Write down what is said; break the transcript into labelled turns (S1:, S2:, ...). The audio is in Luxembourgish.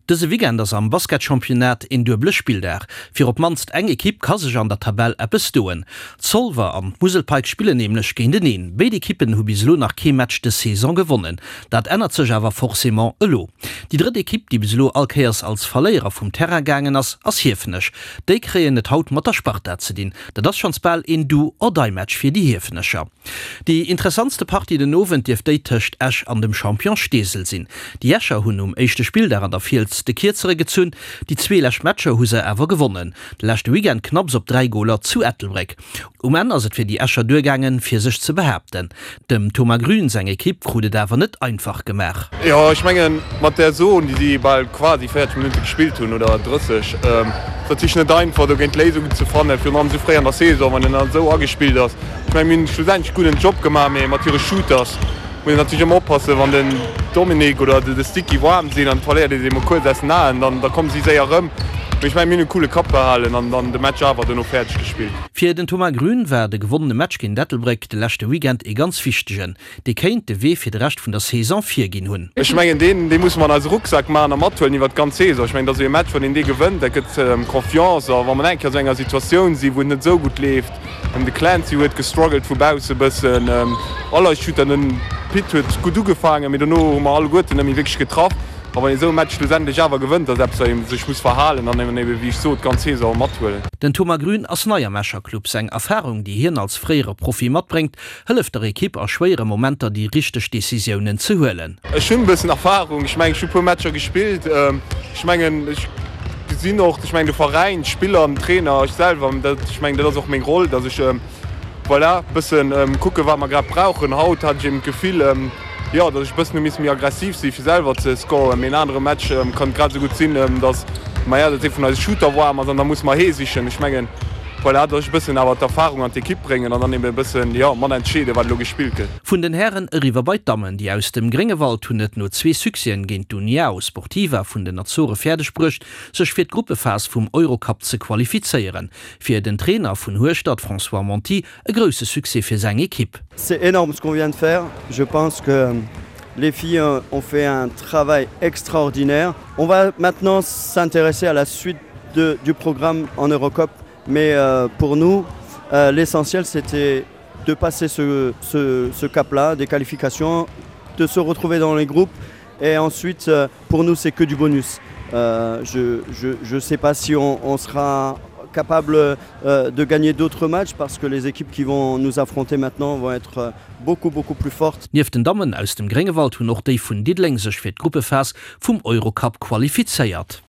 S1: Dëse Weekend ass am Basketchampionnat een duebele Spilldag. Fir op d'mannst eng Ekipp ka sech an der Tabell eppes doen. Zolwer an d'Musel Pikes spillen nämlech géinteneen. Béid Ekippen hu bis elo nach kee Match dës Saison gewonnen. Dat ännert sech awer forcément elo. Déi drëtt Ekipp, déi bis elo all Kéiers als Verléierer vum Terrain gaangen ass, ass Hiefenech. Déi kréien et haut mat der Sparta ze dinn. Dat ass schonns bal een Do-or-Die-Match fir déi Hiefenecher. Déi interessantste Partie den Owend dierft déi tëscht Esch an dem Champion Steesel sinn. Déi Escher hunn um éischte Spilldag an der Fiels de Kierzere gezunn, déi zwee lescht Matcher hu se awer gewonnen. De leschte Weekend knapps op 3 Goler zu Ettelbréck. Um Enn ass et fir déi Escher duergaangen, fir sech ze behaapten. Dem Thomas Grün seng Ekipp krut et awer net einfach gemaach.
S2: Jo, ech mengen, mat där Zone, déi si bal quasi 40 Minutte gespillt hunn, oder 30, ass natierlech net einfach, dogéint Léisungen ze fannen, virun allem esou fréi an der Saison, wann een dann esou agespillt ass. Ech mengen, mir hunn schlussendlech gudden Job gemaach, mee mat hire Shooters muss een natierlech ëmmer oppassen, wann den Dominic oder de Sticky waarm sinn an et verléiert ee se emol kuerz aus den Aen, dann da komme si séier erëm. Mee ech mengen, mir hunn e coole Kapp behalen an dann de Match awer dono fäerdeg gespillt.
S1: Fir den Thomas Grün war de gewonnene Match géint Ettelbréck de leschte Weekend ee ganz wichtegen. Dee kéint de Wee fir de Rescht vun der Saison virginn hunn.
S2: Ech mengen, deen, dee musse mer an eise Rucksak maachen a mathuelen iwwert d'ganz Saison. Ech mengen, dat ass esou ee Match, wann een dee gewënnt, dat gëtt Confiance. A wa mer eng Kéier esou enger Situatioun sinn, wou et net esou gutt leeft, De Clancy huet gestruggelt vu bausse bëssen. All eis Shooter, den Pit huet gutt ugefaangen, mee dono hu mer alleguerten net méi wierklech getraff. A wann ee sou e Match schlussendlech awer gewënnt, ass eppes, wat ee sech muss verhalen an eben, wéi ech sot, d'ganz Saison mathuelen.
S1: Den Thomas Grün ass nei am Escher Club. Seng Erfarung, déi hien als fréiere Profi matbréngt, hëlleft der Ekipp a schwéiere Momenter déi richteg Decisiounen ze huelen.
S2: Ech hunn e bëssen Erfarung, ech mengen ech hu puer Matcher gespillt. Ech mengen ech gesinn och, ech mengen de Veräin, d'Spiller, den Trainer, ech selwer, dat ech mengen dat ass och meng Roll, datt ech voilà bëssen kucke wat mer grad brauchen. Haut hat ech eben d'Gefill, jo datt ech e bëssen hu missen méi aggressiv si fir selwer ze scoren. Mee en anere Match kann et grad esou gutt sinn, datt maja datt ee vun eise Shooter waarm ass an da musse mer hee sichen. Ech mengen Voilà, dass ech e bëssen awer d'Erfahrung an d'Ekipp bréngen an dann eben e bëssen, jo, mat entscheeden, wat elo gespillt gëtt.
S1: Vun den Hären eriwwer bei d'Dammen. Déi aus dem Gréngewald hunn et no zwee Succèsen géint d'Uniao Sportiva vun den Azore fäerdeg bruecht, sech fir d'Gruppephas vum Eurocup ze qualifizéieren. Fir den Trainer vun Hueschtert, François Monti, e grousse Succès fir seng Ekipp.
S3: C'est énorme ce qu'on vient de faire. Je pense que les filles ont fait un travail extraordinaire. On va maintenant s'intéresser à la suite de, du programme en Eurocup. Mais euh, pour nous, euh, l'essentiel c'était de passer ce, ce, ce cap-là des qualifications, de se retrouver dans les groupes et ensuite euh, pour nous c'est que du bonus. Euh, je, je, je sais pas si on, on sera capable euh, de gagner d'autres matchs parce que les équipes qui vont nous affronter maintenant vont être euh, beaucoup beaucoup plus fortes.
S1: Nieft den Dammen aus dem Gréngewald hunn och déi vun Diddeleng sech fir d'Gruppephas vum Eurocup qualifizéiert.